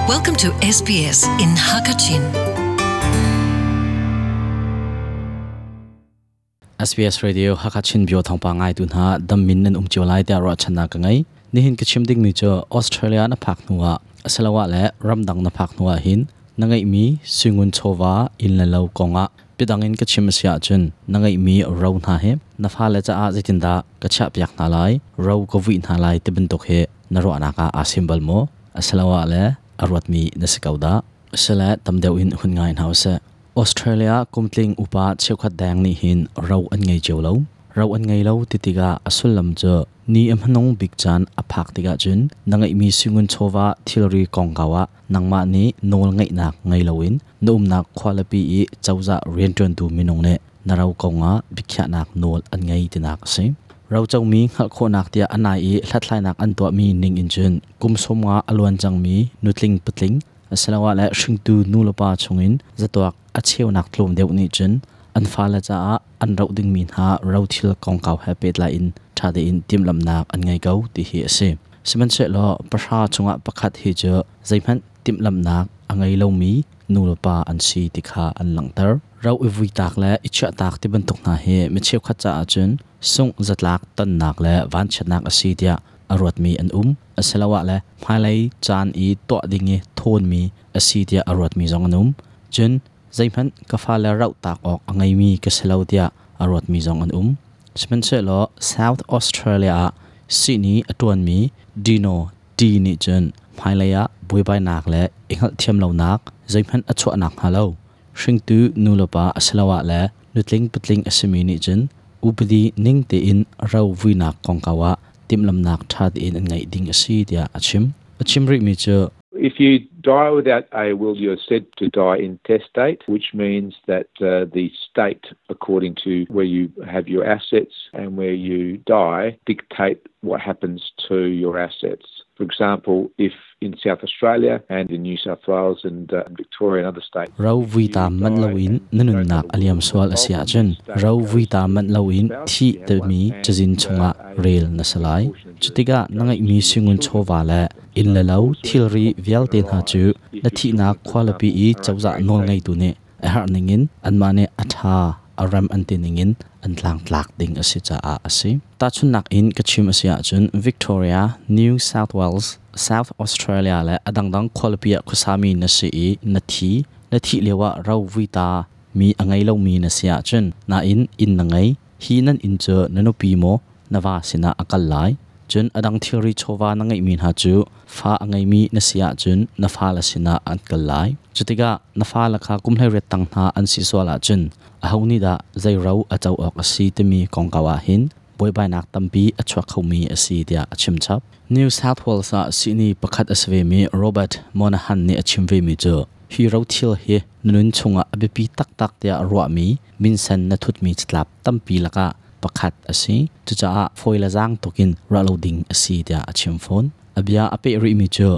Welcome to SBS in Hakachin. SBS Radio Hakachin bio thawngpa ngai tu hna dammin nan um cio lai tiah ruahchannak ka ngei. Nihin ka chim dingmi cu Australia na phak hnuah asiloah le ramdang na phak hnuah hin na ngeihmi suingun chawva inn le lo kongah biadang in ka chim a si ahcun na ngeihmi ro hna hi na fale caah zeitindah ka chiahpiak hna lai, ro ka vuih hna lai ti bantuk hi na ruahnak ah aa sim bal maw? Asiloah le a ruatmi na si ko dah? Asile tam deuh in hun ngai hna usih. Australia kumtling upa cheukhat deng nih hin ro an ngei cio lo. Ro an ngei lo ti tikah a sullam cu ni a hmanung bik caan a phak tikah cun na ngeihmi singun chawva thilri kongkau ah nangmah nih nawl ngeihnak ngei loin na umnak khualipi i cozah rianṭuantu minung nih na ro kongah biakhiahnak nawl an ngei tinak a si. Rocomi hngalh khawhnak tiah a nai i hlathlainak an tuahmi ning in cun kum 50 a luan cangmi nutling patling asiloah le hringtu nulepa chungin zatuak a cheunak tlawm deuh nih cun an fale caah an roh dingmi hna rothil kongkau he pehtlai in ṭha tein timhlamhnak an ngei ko ti hi a si. Sihmanhsehlaw pahra chungah pakhat hi cu zeihmanh timhlamhnak a ngei lomi nulepa an si ti kha an langhter. Ro i vuitak le i chiahtak ti bantuk hna hi mi cheukhat caah cun sungh zatlak tonnak le vanchiatnak a si tiah a ruatmi an um. Asiloah le hmailei caan i tuah ding i thawnmi a si tiah a ruatmi zong an um. Cun zeihmanh ka fale rauhtak awk a ngeimi ka si lo tiah a ruatmi zong an um. Sihmanhsehlaw South Australia ah sihni a ṭuanmi Dino T nih cun hmailei ah buaibainak le i hngalhthiam lonak zeihmanh a chuah nakhnga lo hringtu nulepa asiloah le nutling patling a simi nih cun upadi ning tein ro vuinak kongkau ah timhlamnak ṭha tein an ngeih ding a si tiah a chim. A chim rihmi cu If you die without a will, you're said to die intestate, which means that uh, the state, according to where you have your assets and where you die, dictate what happens to your assets. For example, if in South Australia and in New South Wales and uh, Victoria and other states. Ro vui ta manh loin na nunnak a liam sual a si ahcun ro vui ta manh loin thi timi cazin chungah rel na si lai. Cutikah na ngeihmi singun chawva le inn le lo thilri vialte hna cu na thihnak khualipi i cozah nawlngeitu nih a herh ningin anmah nih a ṭha a rem an ti ningin an tlangtlak ding a si caah a si. Tahchunhnak in ka chim a si ahcun Victoria, New South Wales, South Australia le a dangdang khualipi ah khuasami na si i na thi, na thih lioah ro vuita mi a ngei lomi na si ahcun nain inn na ngei, hi nan inn cu na nupi maw na va sinah a kal lai. Cun a dang thilri chawva na ngeihmi hna cu fa a ngeimi na si ahcun na fale sinah an kal lai. Cutikah na fale kha kum 18 tang hna an si sual ahcun aho nih dah zei ro a co awk a si timi kongkau ah hin buaibainak tampi a chuak khomi a si tiah a chim chap. New South Wales ah sihni pakhat a si vemi Robert Monahan nih a chim vemi cu hi rothil hi na nun chungah a biapi taktak tiah ruahmi minsen na thutmi catlap tampi lakah pakhat a si. Cucaah fawi le zaang tukin ruah lo ding a si tiah a chim fawn. A bia a peh rihmi cu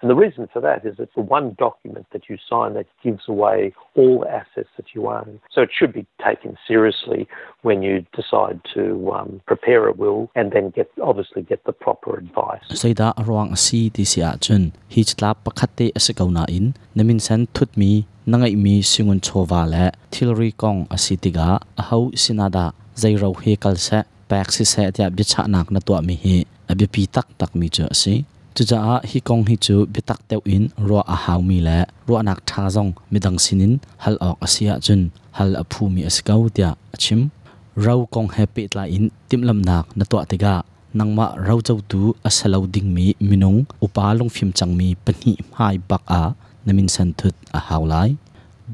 And the reason for that is it's the one document that you sign that gives away all the assets that you own. So it should be taken seriously when you decide to um, prepare a will and then get obviously get the proper advice. Zeidah a ruang a si ti si ahcun hi catlap pakhat te a si ko nain na minsen thutmi na ngeihmi singun chawva le thilri kong a si tikah aho sinah dah zei ro hi kal seh pek siseh tiah biachahnak na tuahmi hi a biapi taktakmi cu a si. Cucaah hi kong hi cu biatak deuh in ruah a haumi le ruahnak ṭha zong midang sinin hal awk a si ahcun hal a phumi a si ko tiah a chim. Ro kong he pehtlai in timhlamhnak na tuah tikah nangmah rocotu a si lo dingmi minung upa lungfim cangmi pahnih hmai bak ah na minsen thut a hau lai.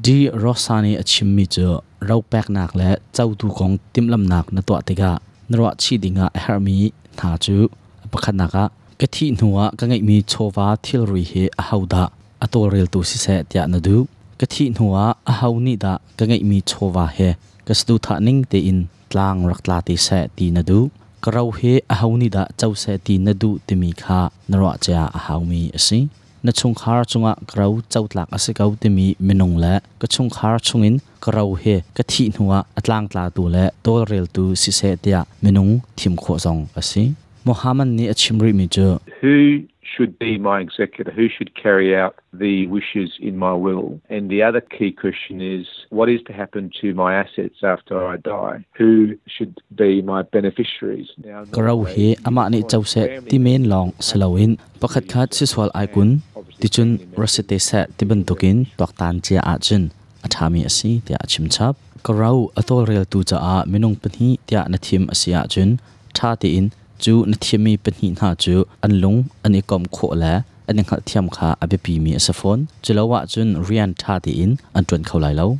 D. Rosa nih a chimmi cu ro peknak le cotu kong timhlamhnak na tuah tikah na ruahchih dingah a herhmi hna cu a pakhatnak ah ka thih hnuah ka ngeihmi chawva thilri hi ahodah a tawlreltu siseh tiah na duh. Ka thih hnuah aho nih dah ka ngeihmi chawva he ka saduhthah ning tein tlang rak tla te seh ti na duh. Ka ro hi aho nih dah co seh ti na duh timi kha na ruah cia a haumi a si. Na chungkhar cungah ka ro cotlak a si ko timi minung le ka chungkhar chungin ka ro hi ka thih hnuah a tlangtlatu le tawlreltu siseh tiah minung thim khawh zong a si. Muhammad nih a chim rihmi cu Who should be my executor? Who should carry out the wishes in my will? And the other key question is, what is to happen to my assets after I die? Who should be my beneficiaries? Now, Ka ro hi amah nih co seh ti men lawng si loin pakhatkhat sisual ai kun ticun ra si te seh ti bantukin tuaktan cia ahcun a ṭhami a si tiah a chim chap. Ka ro a tawlreltu caah minung pahnih tiah na thim a si ahcun ṭha tein cu na thimmi pahnih hna cu an lung an i komh khawh le an i hngalhthiam kha a biapimi a si fawn. Culo ahcun rian ṭha tein an ṭuan kho lai lo.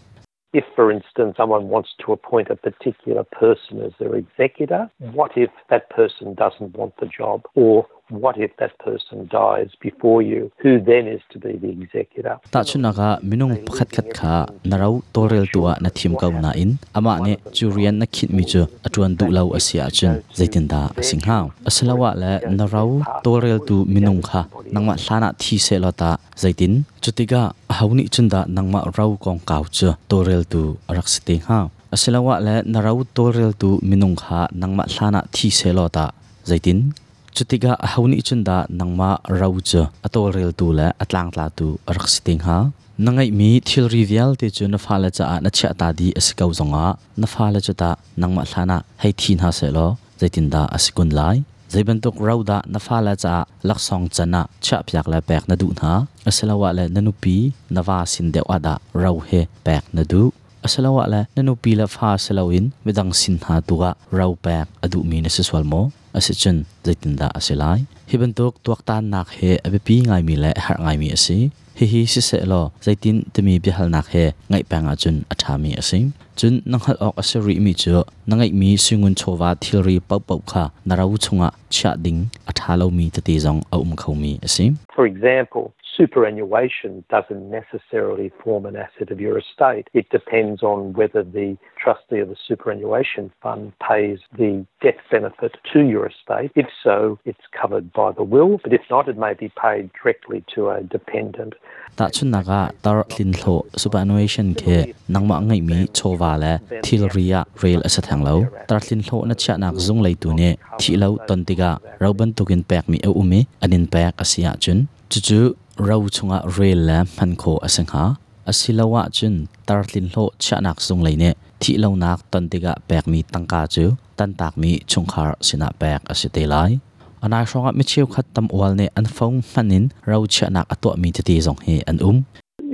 If, for instance, someone wants to appoint a particular person as their executor, what if that person doesn't want the job? Or what if that person dies before you? Who then is to be the executor? Tahchunhnak ah, minung pakhatkhat kha na ro tawlreltu ah na thim ko nain amah nih cu rian na khinhmi cu a ṭuan duh lo a si ahcun zeitindah a si hnga? Asiloah le na ro tawlreltu minung kha nangmah hlanah thi sehlaw tah zeitin? Cutikah aho nih cun dah nangmah ro kongkau cu tawlreltu a rak si te hnga? Asiloah le na ro tawlreltu minung kha nangmah hlanah thi sehlaw tah zeitin? Cutikah aho nih cun dah nangmah ro cu a tawlreltu le a tlangtlatu a rak si te hnga? Na ngeihmi thilri vialte cu na fale caah na chiahta dih a si ko zongah na fale cu tah nangmah hlanah hei thi hna sehlaw zeitindah a si kun lai? Zei bantuk ro dah na fale caah laksawng can ah chiahpiak le pek na duh hna? Asiloah le na nupi, na va sin deuh ah dah ro hi pek na duh? Asiloah le na nupi le fa si loin midang sin hna tu ah ro pek a duhmi na si sual maw? Asicun zeitindah a si lai? Hi bantuk tuaktannak hi a biapi ngaimi le a herh ngaimi a si. Hihi siseh law zeitin timi biahalnak he ngaih peng ahcun a ṭhami a si. Cun na hngalh awk a si rihmi cu na ngeihmi suingun chawva thilri paohpaoh kha na ro chungah chiah ding a ṭha lomi tete zong a um khomi a si. For example, superannuation doesn't necessarily form an asset of your estate. It depends on whether the trustee of the superannuation fund pays the death benefit to your estate. If so, it's covered by the will, but if not, it may be paid directly to a dependent. Tahchunhnak ah tar tlinhlawh superannuation khi nangmah ngeihmi chawva le thilri ah rel a si theng lo. Tar tlinhlawh na chiahnak zung leitu nih thih lo ton tikah ro bantukin pekmi a um i an in pek a si ahcun cucu ro chungah rel le hman khawh a si hnga. Asiloah cun tar tlinhlawh chiahnak zung lei nih thihlonak ton tikah pekmi tangka cu tantakmi chungkhar sinah pek a si te lai. A nai hrawngah mi cheukhat tam ual nih an phone hman in ro chiahnak a tuahmi tete zong hi an um.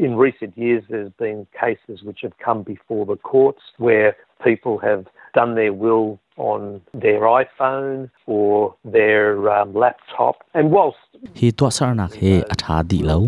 In recent years, there's been cases which have come before the courts where people have done their will on their iPhone or their laptop. And whilst Hi tuahsernak hi a ṭha dih lo.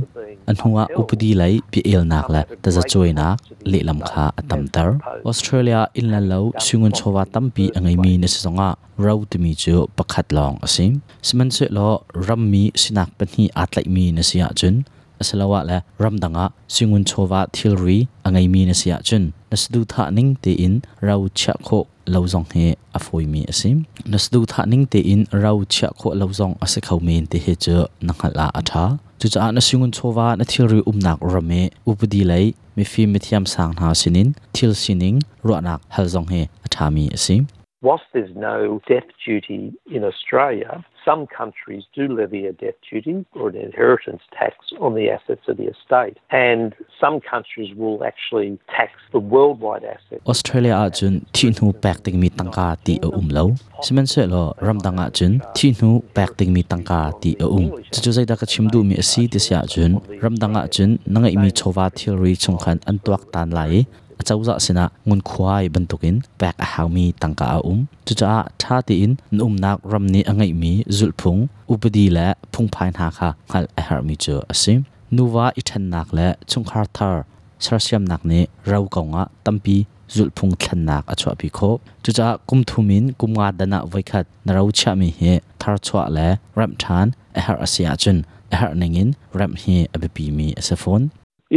A hnuah upadi lei bia-elnak le tazacuainak lehlam kha a tamter. Australia inn le lo suingun chawva tampi a ngeimi na si zongah ro timi cu pakhat lawng a si. Sihmanhsehlaw rammi sinak pahnih aa tlaihmi na si ahcun asiloah le ramdang ah suingun chawva thilri a ngeimi na si ahcun na saduhthah ning tein ro chiah khawh lo zong hi a fawimi a si. Na saduhthah ning tein ro chiah khawh lo zong a si kho men ti hi cu na hngalh ah a ṭha. Cucaah na singun chawva na thilri umnak ram i upadi lei mifim mithiam sang hna sinin thil sining ruahnak hal zong hi a ṭhami a si. Whilst there's no death duty in Australia, some countries do levy a death duty or an inheritance tax on the assets of the estate. And some countries will actually tax the worldwide assets. Australia ahcun thihhnu pek dingmi tangka ti a um lo. Sihmanhsehlaw ramdang ahcun thihhnu pek dingmi tangka ti a um. Cucu zeidah ka chim duhmi a si ti si ahcun ramdang ahcun na ngeihmi chawva thilri chung khan an tuaktan lai i acozah sinah ngunkhuai bantukin pek a haumi tangka a um. Cucaah ṭha tein na umnak ram nih a ngeihmi zulhphung, upadi le phungphai hna kha hngalh a herhmi cu a si. Nuva i ṭhennak le chungkhar thar sersiamnak nih ro kongah tampi zulhphung thlennak a chuahpi khawh. Cucaah kum thum in kum nga dan ah voikhat na ro chiahmi hi tharchuah le remh ṭhan a herh a si ahcun a herh ningin remh hi a biapimi a si fawn.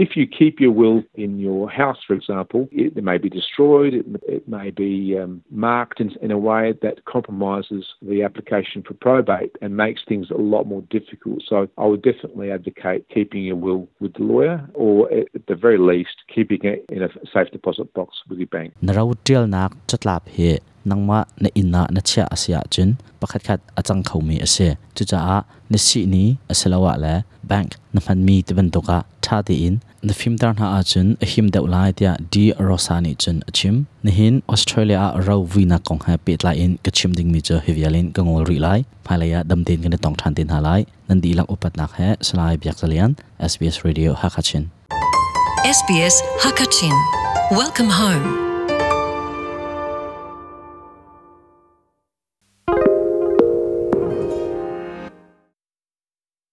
If you keep your will in your house, for example, it may be destroyed, it may be marked in a way that compromises the application for probate and makes things a lot more difficult. So I would definitely advocate keeping your will with the lawyer or at the very least keeping it in a safe deposit box with your bank. Na ro ṭialnak catlap hi Nangmah na inn ah na chiah a si ahcun pakhatkhat a cang khomi a si. Cucaah na sihni asiloah le bank na hmanmi ti bantuk ah ṭha tein na fimter hna ahcun a him deuh lai tiah D. Rosa nih cun a chim. Nihin Australia ah ro vuinak kong he pehtlai in ka chim dingmi cu hi vial in ka ngol rih lai. Hmailei ah dam tein kan i tong ṭhan te hna lai. Nan dihlak upatnak he Salai Biak Za Lian, SBS Radio Hakha Chin. SBS Hakachin. Welcome home.